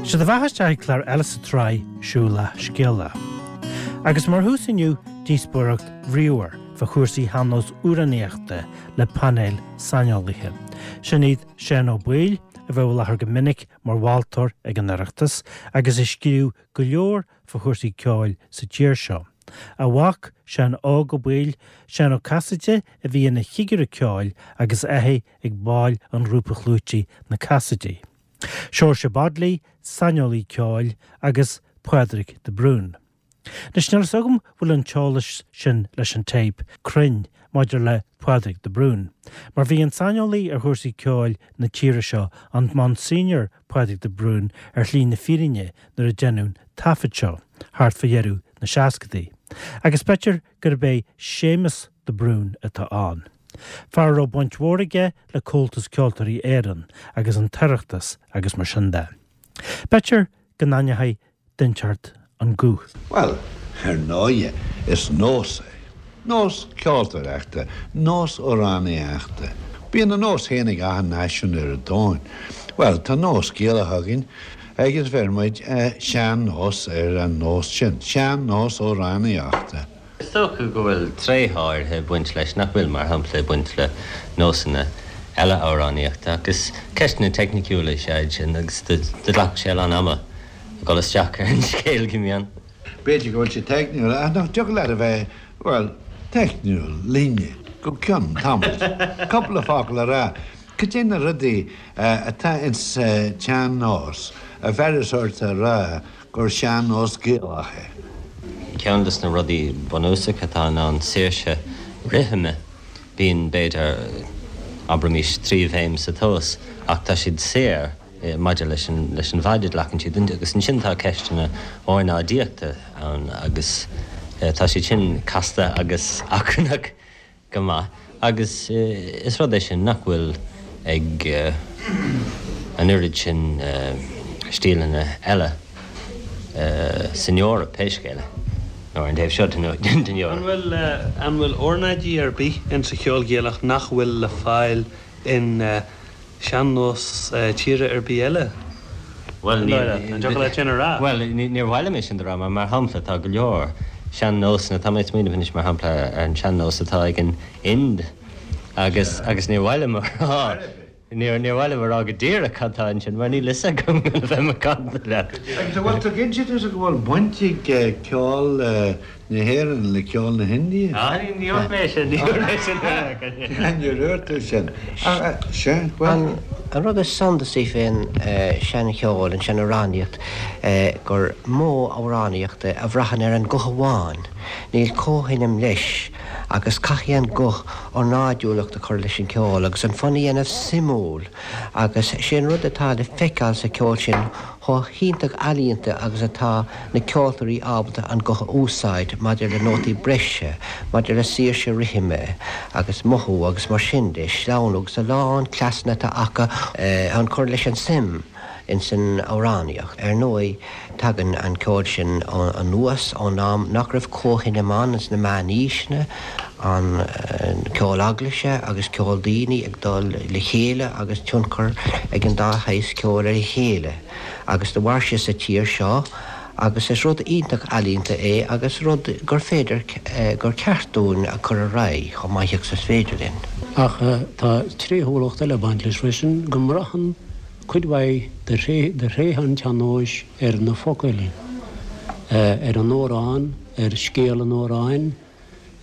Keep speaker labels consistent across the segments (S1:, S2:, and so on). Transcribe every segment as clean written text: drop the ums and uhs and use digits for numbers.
S1: Sé do bheatha isteach ag clár eile sa tsraith Siúlach Scéalach. Agus mar thús inniu, díospóireacht bhríomhar fá chúrsaí shean-nós amhránaíochta le painéal saineolaithe. Sin iad Seán Ó Baoill, a bheadh i láthair go minic mar mholtóir ag an Oireachtas agus a scríobh go leor fá chúrsaí ceoil sa tír seo. A mhac, Seán Óg Ó Baoill, Seán Ó Casaide a bhí ina chigire ceoil agus a ag baill an ghrúpa chlúitigh Na Casaidigh. Seoirse Bodley, saineolaí ceoil, agus Pádraig de Brún. Anois níl fhios agam bhfuil an t-eolas sin leis an téip cruinn maidir le Pádraig de Brún, mar bhí an saineolaí ar chúrsaí ceoil na tíre seo, an Monsignor Pádraig de Brún, ar shlí na fírinne nuair a deineadh an taifead seo, thart fá dheireadh na seascadaí. Agus b'fhéidir gurb é Séamus de Brún atá ann. Fear a raibh baint mhór aige le Comhaltas Ceoltóirí Éireann agus an tOireachtas agus mar sin de. B'fhéidir go n-aithneoidh duine inteacht an guth.
S2: Bhuel, ar ndóighe, is nós é. Nós ceoltóireachta, nós amhránaíochta. Bíonn a nós féin ag achan náisiún ar an domhan. Bhuel, tá nós Gaelach againn agus bheir muid sean-nós ar an nós sin, sean-nós amhránaíochta.
S3: Is dócha go bhfuil tréithe áirithe ag baint leis nach bhfuil, mar shampla, ag baint le nósanna eile amhránaíochta. Ach is ceisteanna teicniciúla is ea iad sin agus do ghlacfadh sé a lán ama a dhul isteach ar an scéal go mion.
S2: B'fhéidir go bhfuil sé teicniúil, ach nach dtiocfadh leat a bheith, bhuel, teicniúil linne go ceann tamaill. Cúpla focal a rá. Cad é na rudaí atá ins sa tsean-nós a bheireas ort a rá gur sean-nós Gaelach é.
S3: Ceann de na rudaí bunúsacha atá ann ná saoirse rithime. Bíonn, b'fhéidir, abraimís, 3 bhéim sa tomhas, ach tá siad saor maidir leis an leis an bhfaid a ghlacann siad. Agus ansin tá ceisteanna ornáidíochta ann agus tá siad sin casta agus achrannach. go maith agus is rud é sin nach bhfuil ag an oiread sin stíleanna eile san Eoraip, pé scéal é, nó ar an taobh seo den
S4: Eoraip. An bhfuil, an bhfuil ornáidí ar bith insa cheol Gaelach nach bhfuil le fáil in sean-nós tíre ar bith eile?
S3: Bhuel, ní, An dtiocfadh leat sin a rá? Bhuel, níor mhaith liom é sin do rá, mar mar shampla, tá go leor sean-nósanna, tá mé ag smaoineamh anois mar shampla ar an sean-nós atá ag an Ind agus, agus níor mhaith liom a rá, níor, níor mhaith liom a rá go díreach cad tá ansin mar níl fhios agam le bheith macánta
S2: leat. Agus an bhfuil tú cinnte tusa go bhfuil baint ag ceol na hÉireann le ceol na hIndia?
S3: Ah, ní dúirt mé sin, ní dúirt mé sin.
S2: Níor dhúirt tú sin. Sea,
S5: bhuel. An rud is suntasaí fén seancheol, an seanamhránaíocht, gur modh amhránaíochta a bhraitheann ar an guth amháin. Níl comhsheinm leis agus caithfidh an guth ornáidiúlacht a chur leis an cheol agus an fonn a dhéanamh suimiúil agus sé an rud atá le feiceáil sa cheol sin chomh hiontach ealaíonta agus atá na ceoltóirí ábalta an guth a úsáid maidir le nótaí breise, maidir le saoirse rithime agus mothú agus mar sin de, sleamhnú agus a lán cleasanna atá acu chun cur leis an suim ins an amhránaíocht. Ar ndóigh, tagann an ceol sin anuas ón am nach raibh comhsheinm ann ins na meánaoiseanna, an ceol eaglaise agus ceol daoine ag dul le chéile agus tionchar ag an dá shaghas ceoil ar a chéile agus do mhair sé sa tír seo agus is rud iontach ealaíonta é agus rud gur féidir, gur ceart dúinn a chur ar aghaidh chomh maith agus is féidir linn.
S6: Ach tá tréithiúlacht eile ag baint leis freisin, go mbraitheann cuid mhaith de thréithe an tsean-nóis ar na focail, ar an amhrán, ar scéal an amhráin,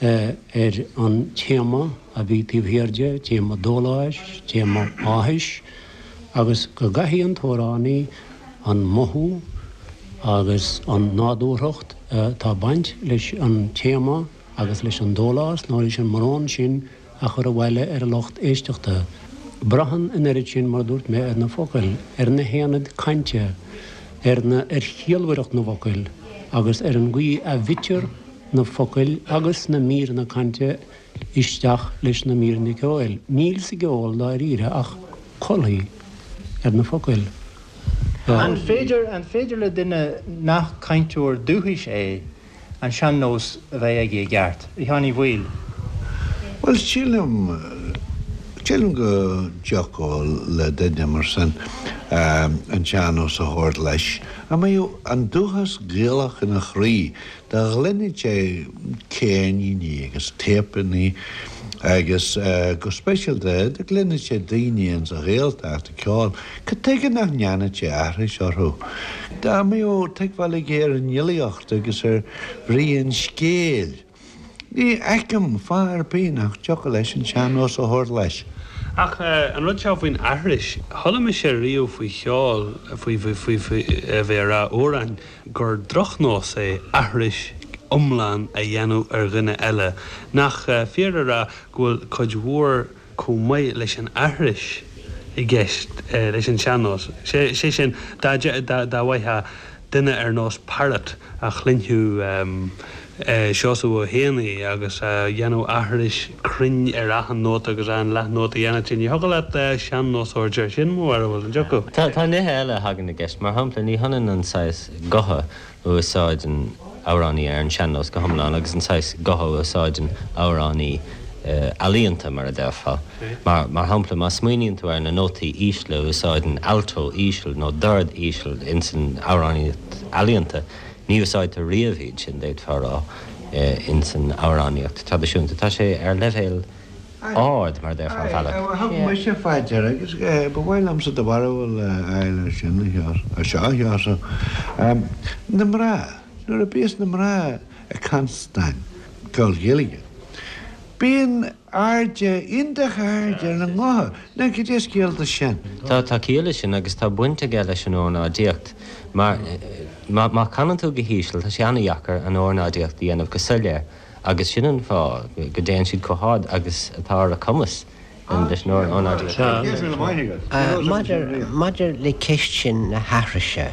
S6: ar an téama a bhí taobh thiar de, téama dóláis, téama áthais, agus go gcaithfidh an t-amhránaí an mothú agus an nádúrthacht atá ag baint leis an téama agus leis an dólás nó leis an mbrón sin a chur abhaile ar an lucht éisteachta. Braitheann an oiread sin, mar a dúirt mé, ar na focail, ar na haonaid cainte, ar na, ar chiallmhaireacht na bhfocal agus ar an gcaoi a bhfitear na focail agus na míreanna cainte isteach leis na míreanna ceoil. Níl sa gceol dáiríre ach colthaí ar na focail.
S7: An féidir, an féidir le duine nach cainteoir dúchais é an sean-nós a bheith aige i gceart? A Sheáin Uí Bhaoill.
S2: Bhuel, sílim, sílim go dtiocfadh le duine mar sin. an sean-nós a thabhairt leis. Dá mbeadh an dúchas Gaelach ina chroí, dá gcluinfeadh sé ceirníní agus téipeanna agus go speisialta dá gcluinfeadh sé daoine ins an Ghaeltacht ag ceol, cad tuige nach ndéanfadh sé aithris orthu? Dá mbeadh tuigbheáil aige ar an fhilíocht agus ar bhrí an scéil. Ní fheicim fáth ar bith nach dtiocfadh leis an sean-nós a thabhairt leis.
S4: Ach an rud seo faoin aithris, chuala mise riamh faoi cheol, faoi, faoi, faoi, faoi, a bheith ag rá amhráin, gur drochnós é aithris iomlán a dhéanamh ar dhuine eile. Nach fíor a rá go bhfuil cuid mhór chomh maith leis an aithris i gceist leis an sean-nós. Sé sin, dá bhfaigheadh duine ar nós Parrott a chluinfeadh Seosamh Ó hÉanaí agus a dhéanamh aithris cruinn ar achan nóta agus achan leathnóta a dhéanfadh sé, ní thiocfadh leat sean-nósóir air sin, mo bharúil, an dtiocfadh?
S3: Tá nithe eile a thagann i gceist. Mar shampla, ní hionann an saghas gutha a úsáideann amhránaí ar an sean-nós go hiomlán agus an saghas gutha a úsáideann amhránaí ealaíonta, mar a déarfá. Mar mar shampla, má smaoiníonn tú ar na nótaí ísle a úsáideann alto íseal nó dord íseal ins an amhránaíocht ealaíonta, ní úsáidtear riamh iad sin, d'fhéadfá a rá, ins an amhránaíocht traidisiúnta. Tá sé ar leibhéal. ard, mar a déarfá, ar bhealach.
S2: Thug mise fá deara agus ba mhaith liomsa do bharúil a fháil ar sin, a seo, a Sheosaimh. Na mná, nuair a bíos na mná ag cantain ceol Gaeilge, bíonn airde, iontach ard ar a ngutha. Now, cad é scéal de sin?
S3: Tá, tá ciall leis sin agus tá baint aige leis an ornáidíocht mar má chanann tú go híseal, tá sé an-dheacair an ornáidíocht a dhéanamh go soiléir. Agus sin an fáth go dtéann siad chomh hard agus atá ar a cumas leis an ornáidíocht.
S5: Maidir le ceist sin na haithrise,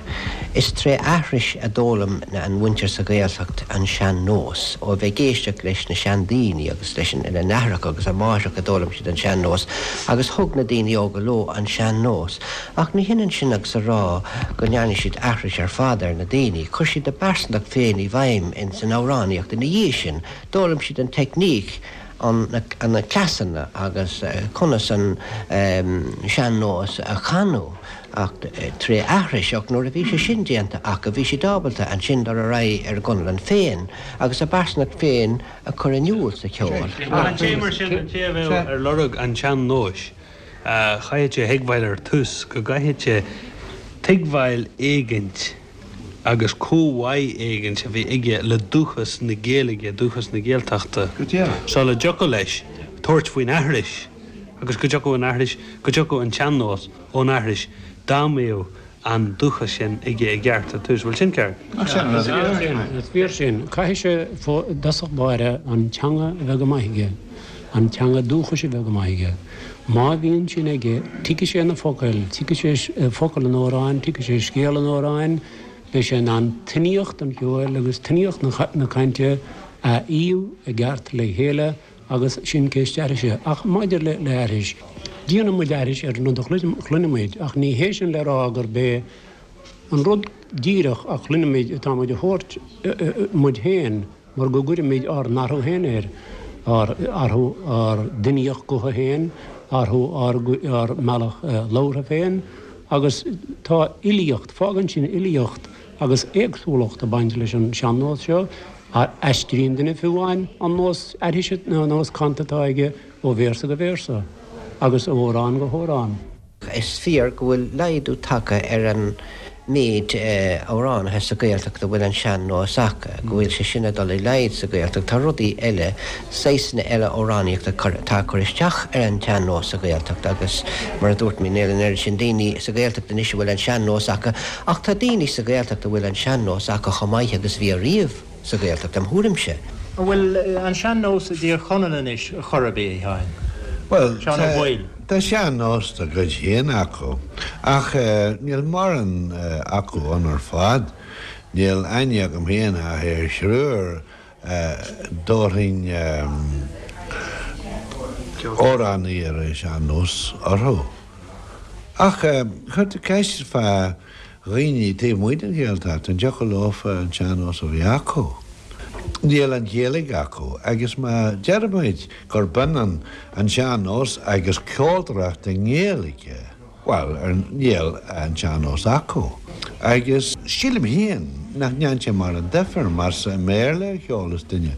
S5: is tré aithris a d'fhoghlaim an mhuintir sa Ghaeltacht an sean-nós. Ó bheith ag éisteacht leis na seandaoine agus leis a n-aithreacha agus a máithreacha a d'fhoghlaim siad an sean-nós agus thug na daoine óga leo an sean-nós. Ach ní hionann sin agus a rá go ndearna siad aithris ar fad ar na daoine. Chuir siad a bpearsantacht féin i bhfeidhm ins an amhránaíocht ina dhiaidh sin. D'fhoghlaim siad an teicníc, an, na cleasanna agus conas an sean-nós a chanadh ach tré aithris. Ach nuair a bhí sé sin déanta acu, bhí siad ábalta ansin dul ar aghaidh ar a gconlán féin agus a bpearsantacht féin a chur in iúl sa cheol.
S4: An té mar sin, an té a bheadh ar lorg an tsean-nóis, Chaithfeadh sé a thuigbheáil ar tús go gcaithfeadh sé tuigbheáil éigint agus comhbhá éigint a bheith aige le dúchas na Gaeilge, dúchas na Gaeltachta, sula dtiocfadh leis tabhairt faoin aithris agus go dtiocfadh an aithris, go dtiocfadh an tsean-nós ón aithris dá mbeadh an dúchas sin aige i gceart ar tús. Bhfuil sin ceart?
S6: Is fíor sin. Caithfidh sé i dtosach báire an teanga a bheith go maith aige, an teanga dúchais a bheith go maith aige. Má bhíonn sin aige, tuigfidh sé na focail, tuigfidh sé focail an amhráin, tuigfidh sé scéal an amhráin, beidh sé in ann tuiníocht an cheoil agus tuiníocht na cainte a fhíodh i gceart le chéile Agus sin ceist aithrise. Ach maidir le haithris, déanann muid aithris ar an rud a chluineann muid, ach ní hé sin le rá gurb é an rud díreach a chluineann muid atá muid a thabhairt muid féin, mar go gcuirimid ár n-athrú féin air, ár athrú, ár dtuiníocht gutha féin, athrú ár ár mbealach labhartha féin, agus tá uilíocht, fágann sin uilíocht agus éagsúlacht ag baint leis an sean-nós seo. Aistríonn duine fiú amháin an nós aithrise nó an nós canta atá aige ó véarsa go véarsa agus ó amhrán go hamhrán.
S5: Is fíor go bhfuil laghdú tagtha ar an méid amhránaithe sa Ghaeltacht a bhfuil an sean-nós acu, go bhfuil sé sin ag dul i laghad sa Ghaeltacht. Tá rudaí eile, saghsanna eile amhránaíochta atá ag cur isteach ar an tsean-nós sa Ghaeltacht agus mar a dúirt mé, níl an oiread sin daoine sa Ghaeltacht anois a bhfuil an sean-nós acu Ach tá daoine sa Ghaeltacht a bhfuil an sean-nós acu chomh maith agus a bhí ariamh sa Ghaeltacht, im thuairimse.
S7: An bhfuil an sean-nós i dTír Chonaill anois chor ar bith, a Sheáin?
S2: Bhuel,
S7: Seán Ó Baoill.
S2: tá sean-nós dá gcuid féin acu, ach níl mórán acu ann ar fad. Níl aithne agam féin ach ar thriúr dtabharfainn amhránaí ar an sean-nós orthu. Ach chuir tú ceist fá dhaoine taobh amuigh den Ghaeltacht, an dtiocfadh leofa an sean-nós a bheith acu? Níl an Ghaeilge acu agus má deirimid gurb ionann an sean-nós agus ceoltóireacht i nGaeilge. Bhuel, níl an tsean-nós acu. Agus sílim féin nach ndéanann sé mórán difear más i mBéarla a cheolas duine.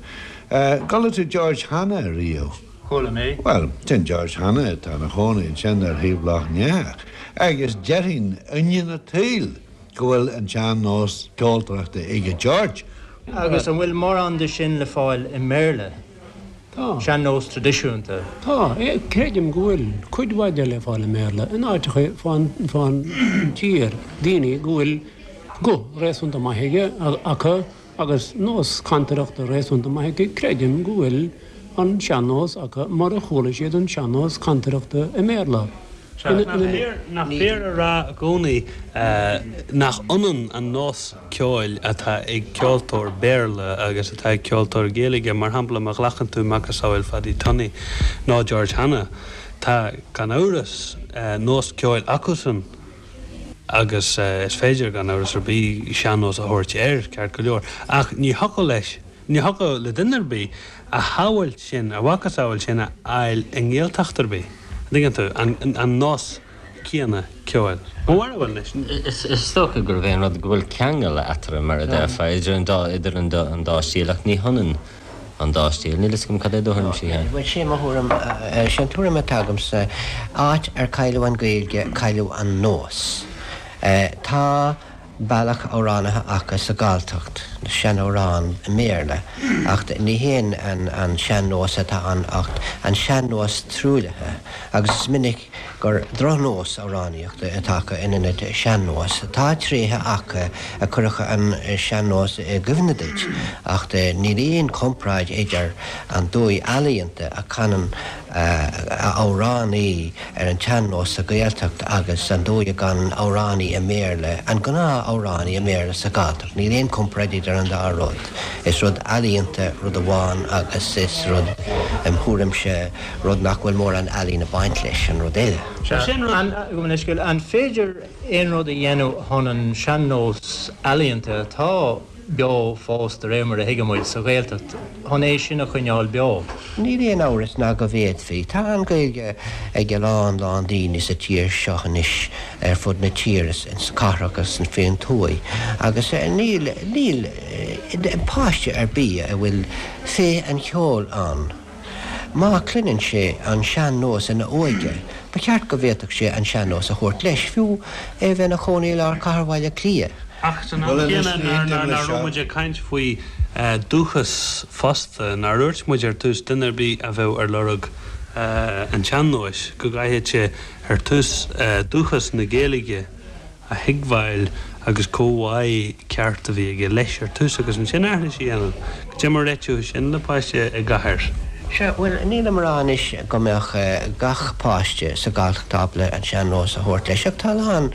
S2: Chuala tú George Hanna riamh?
S7: Chuala mé.
S2: Bhuel, sin George Hanna atá ina chónaí ansin ar thaobh Loch nEathach. Agus déarfainn ionadh an tsaoil go bhfuil an tsean-nós ceoltóireachta aige George.
S7: Agus an bhfuil mórán de sin le fáil i mBéarla?
S6: Tá.
S7: Sean-nós traidisiúnta.
S6: Tá. Creidim go bhfuil cuid mhaith de le fáil i mBéarla in áiteacha fán tír, daoine go bhfuil guth réasúnta maith aige, acu agus nós cantaireachta réasúnta maith acu, creidim go bhfuil an sean-nós acu mar a chuala siad an sean-nós cantaireachta i mBéarla.
S4: Nach fíor a rá i gcónaí nach ionann an nós ceoil atá ag ceoltóir Béarla agus atá ag ceoltóir Gaeilge? Mar shampla, má ghlacann tú macasamhail Phaddy Tunney nó George Hanna, tá, gan amhras, nós ceoil acusan agus is féidir, gan amhras ar bith, sean-nós a thabhairt air, ceart go leor. Ach ní thiocfadh leis, ní thiocfadh le duine ar bith a shamhail sin, a mhacasamhail sin a fháil i nGaeltacht ar bith. An dtuigeann tú? An nós céanna ceoil. Mo bharúil
S3: anois. Is dócha gurb é an rud go bhfuil ceangal eatarthu, mar a déarfá, idir an dá, idir an dá, an dá stíl, ach ní hionann an dá stíl. Níl fhios agam cad é do thuairimse, a Sheáin.
S5: Bhuel, sé mo thuairim, sé an tuairim atá agamsa, áit ar cailleadh an Ghaeilge, cailleadh an nós. Tá. bealach amhránaithe acu sa Ghalltacht, na seanamhráin i mBéarla, acht ní hé an sean-nós atá ann acht an sean-nós truaillithe, agus is minic gur drochnós amhránaíochta atá acu in ionad sean-nós. Tá tréithe acu a chuirfeadh an sean-nós i gcuimhne duit, acht níl aon chomparáid idir an dóigh ealaíonta a chanann amhránaí ar an tsean-nós sa Ghaeltacht agus an dóigh a gcanann amhránaí i mBéarla, an gnáth-amhránaí i mBéarla sa Ghalltacht. Níl aon chomparáid idir an dá rud. Is rud ealaíonta rud amháin agus is rud, im thuairimse, rud nach bhfuil mórán ealaín ag baint leis an rud eile.
S7: Sea, sin rud. An féidir aon rud a dhéanamh chun an sean-nós ealaíonta atá beo fós, de réir mar a thuigeann muid, sa Ghaeltacht, chun é sin a choinneáil beo.
S5: Níl aon amhras ná go bhféadfaí. Tá an Ghaeilge ag a lán lán daoine sa tír seo anois, ar fud na tíre, sna cathracha agus faoin tuaith, agus níl, níl páiste ar bith a bhfuil féith an cheoil ann, Má chluineann sé an sean-nós ina óige, ba cheart go bhféadfadh sé an sean-nós a thabhairt leis, fiú é a bheith ina chónaí i lár chathair Bhaile Átha Cliath.
S4: Ach san am céanna, nach raibh muid ag caint faoi dúchas fosta, nár dhúirt muid ar tús duine ar bith a bheadh ar lorg an tsean-nóis, go gcaithfeadh sé ar tús dúchas na Gaeilge a thuigbheáil agus comhbhá ceart a bhí aige leis ar tús agus ansin aithris a dhéanamh. Cad é mar a réiteofá sin le páiste i gcathair?
S5: Sea, bhuel, nílim a rá anois go mbeadh gach páiste sa Ghalltacht ábalta an sean-nós a thabhairt leis, ach tá a lán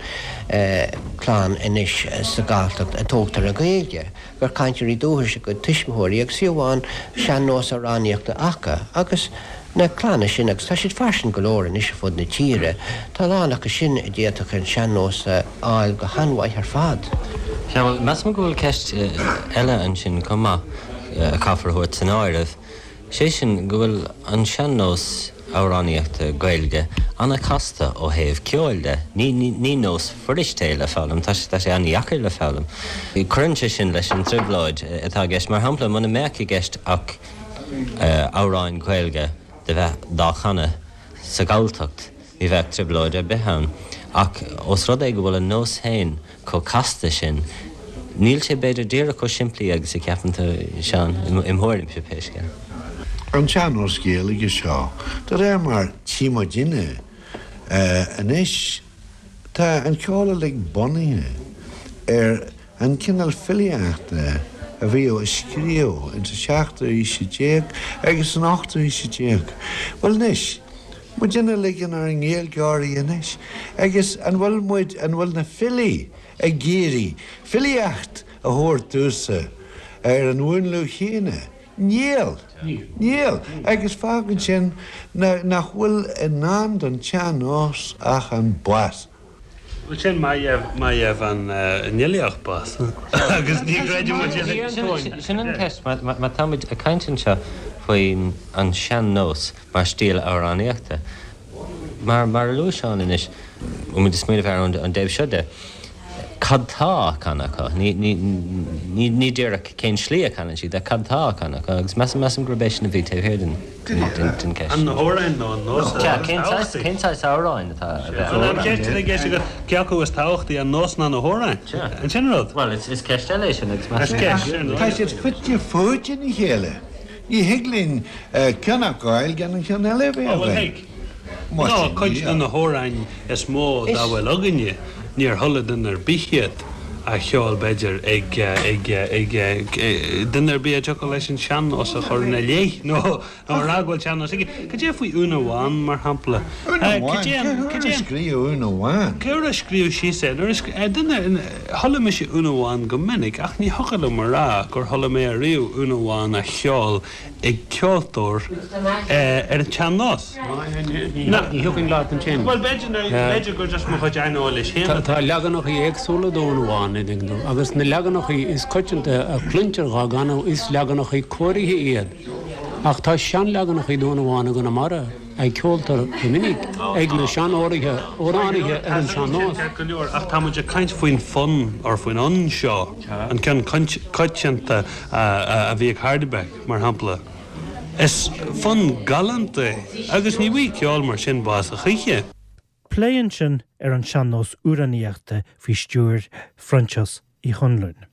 S5: clann anois sa Ghalltacht a tógtar le Gaeilge. gur cainteoirí dúchais a gcuid tuismitheoirí agus fiú amháin sean-nós amhránaíochta acu agus na clanna sin, agus tá siad fairsing go leor anois ar fud na tíre, tá a lán acu sin a d'fhéadfadh an sean-nós a fháil go han-mhaith ar fad.
S3: Sea, bhuel, measaim go bhfuil ceist eile ansin chomh maith a chaithfear a thabhairt san áireamh. Sé sin go bhfuil an sean-nós amhránaíochta Gaeilge an-chasta ó thaobh ceoil de. Ní nós fuirist é le foghlaim, tá sé an-dheacair le foghlaim. Cuireann sé sin leis an trioblóid atá i gceist. Mar shampla, muna mbeadh i gceist ach amhráin Ghaeilge do bheith dá chanadh sa Ghalltacht, ní bheadh trioblóid ar bith ann. Ach ós rud é go bhfuil an nós féin chomh casta sin, níl sé b'fhéidir díreach chomh simplí agus a cheapann tú, Seán, im thuairimse pé scéal.
S2: An tsean-nós Gaeilge seo, de réir mar tchí muidinne anois, tá an ceol uilig bunaithe ar an cineál filíochta a bhíodh á scríobh ins an seachtú haois déag agus san ochtú haois déag. Bhuel anois, Muidinne uilig inár nGaeilgeoirí anois, agus an bhfuil muid, an bhfuil na filí ag iarraidh filíocht a thabhairt domhsa ar an mhúnlú chéanna? Níl! Níl! Agus fágann sin nach bhfuil i ndán don tsean-nós ach an bás.
S4: Bhuel sin má gheibh an fhilíocht bás agus ní chreideann muid
S3: in. Sin an cheist, má tá muid ag caint anseo faoin an sean-nós mar stíl amhránaíochta. Mar mar a luaigh Seán anois, bhfuil muid ag smaoineamh ar an dtaobh seo de, cad tá á chanadh acu? Ní, ní, ní, ní díreach cén slí a chanann siad, ach cad tá á chanadh acu? Agus measaim, measaim gurb é sin a bhí taobh thiar den, den, den, den cheist.
S4: An na hamhráin nó an nós
S3: atá Sea, cén saghas, cén saghas amhráin atá a bheith á
S4: An cheist atá i gceist agat, cé acu is tábhachtaí, an nós ná na hamhráin?
S3: Sea. An sin an rud? Bhuel, is, is ceist eile é sin agus
S2: measaim. Is ceist, sin. Tá siad fite fuaite ina chéile. Ní thig linn ceann a fhágáil gan an ceann eile a bheith
S4: againn. Bhuel, thig. Nó cuid de na hamhráin is mó dá bhfuil againne, níor chuala duine ar bith iad á cheol, b'fhéidir, ag, ag, ag, duine ar bith a dtiocfadh leis an sean-nós a chur ina leith, nó a rá go bhfuil sean-nós aige. Cad é faoi Úna Bhán, mar shampla?
S2: Úna Bhán? Cé huair a scríobhadh Úna Bhán?
S4: Cé huair a scríobhadh síos é? Nuair a scríobh, duine, Chuala mise Úna Bhán go minic ach ní thiocfadh liom a rá gur chuala mé ariamh Úna Bhán á cheol ag ceoltóir ar an tsean-nós.
S6: Ní thiocfainn leat ansin.
S4: Bhuel, b'fhéidir gur just mo chuid aineolais féin
S6: atá. Tá leaganachaí éagsúla d'Úna Bhán, an dtuigeann tú, agus na leaganachaí is coitianta a chluintear dhá gcanadh is leaganachaí cóirithe iad. Ach tá seanleaganachaí d'Úna Bhán i gConamara. a cheoltar go minic ag na seanóirithe, amhránaithe ar an sean-nós.
S4: Ceart go leor, ach tá muid ag caint faoin fonn, or faoin fhonn seo, an ceann coitianta a bhí ag Hardebec, mar shampla. Is fonn galánta é, agus ní bhfaighidh ceol mar sin bás a choíche.
S1: Plé ansin ar an sean-nós amhránaíochta faoi stiúir Phroinsias Uí Chonluain.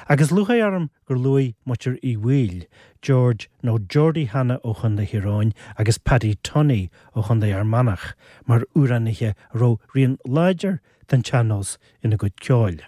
S1: Agus lúcháir orm gur luaigh muintir Uí Bhaoill, George nó Geordie Hanna ó Chontae Thír Eoghain agus Paddy Tunney ó Chontae Fhear Manach mar amhránaithe a raibh rian láidir den tsean-nós ina gcuid ceoil.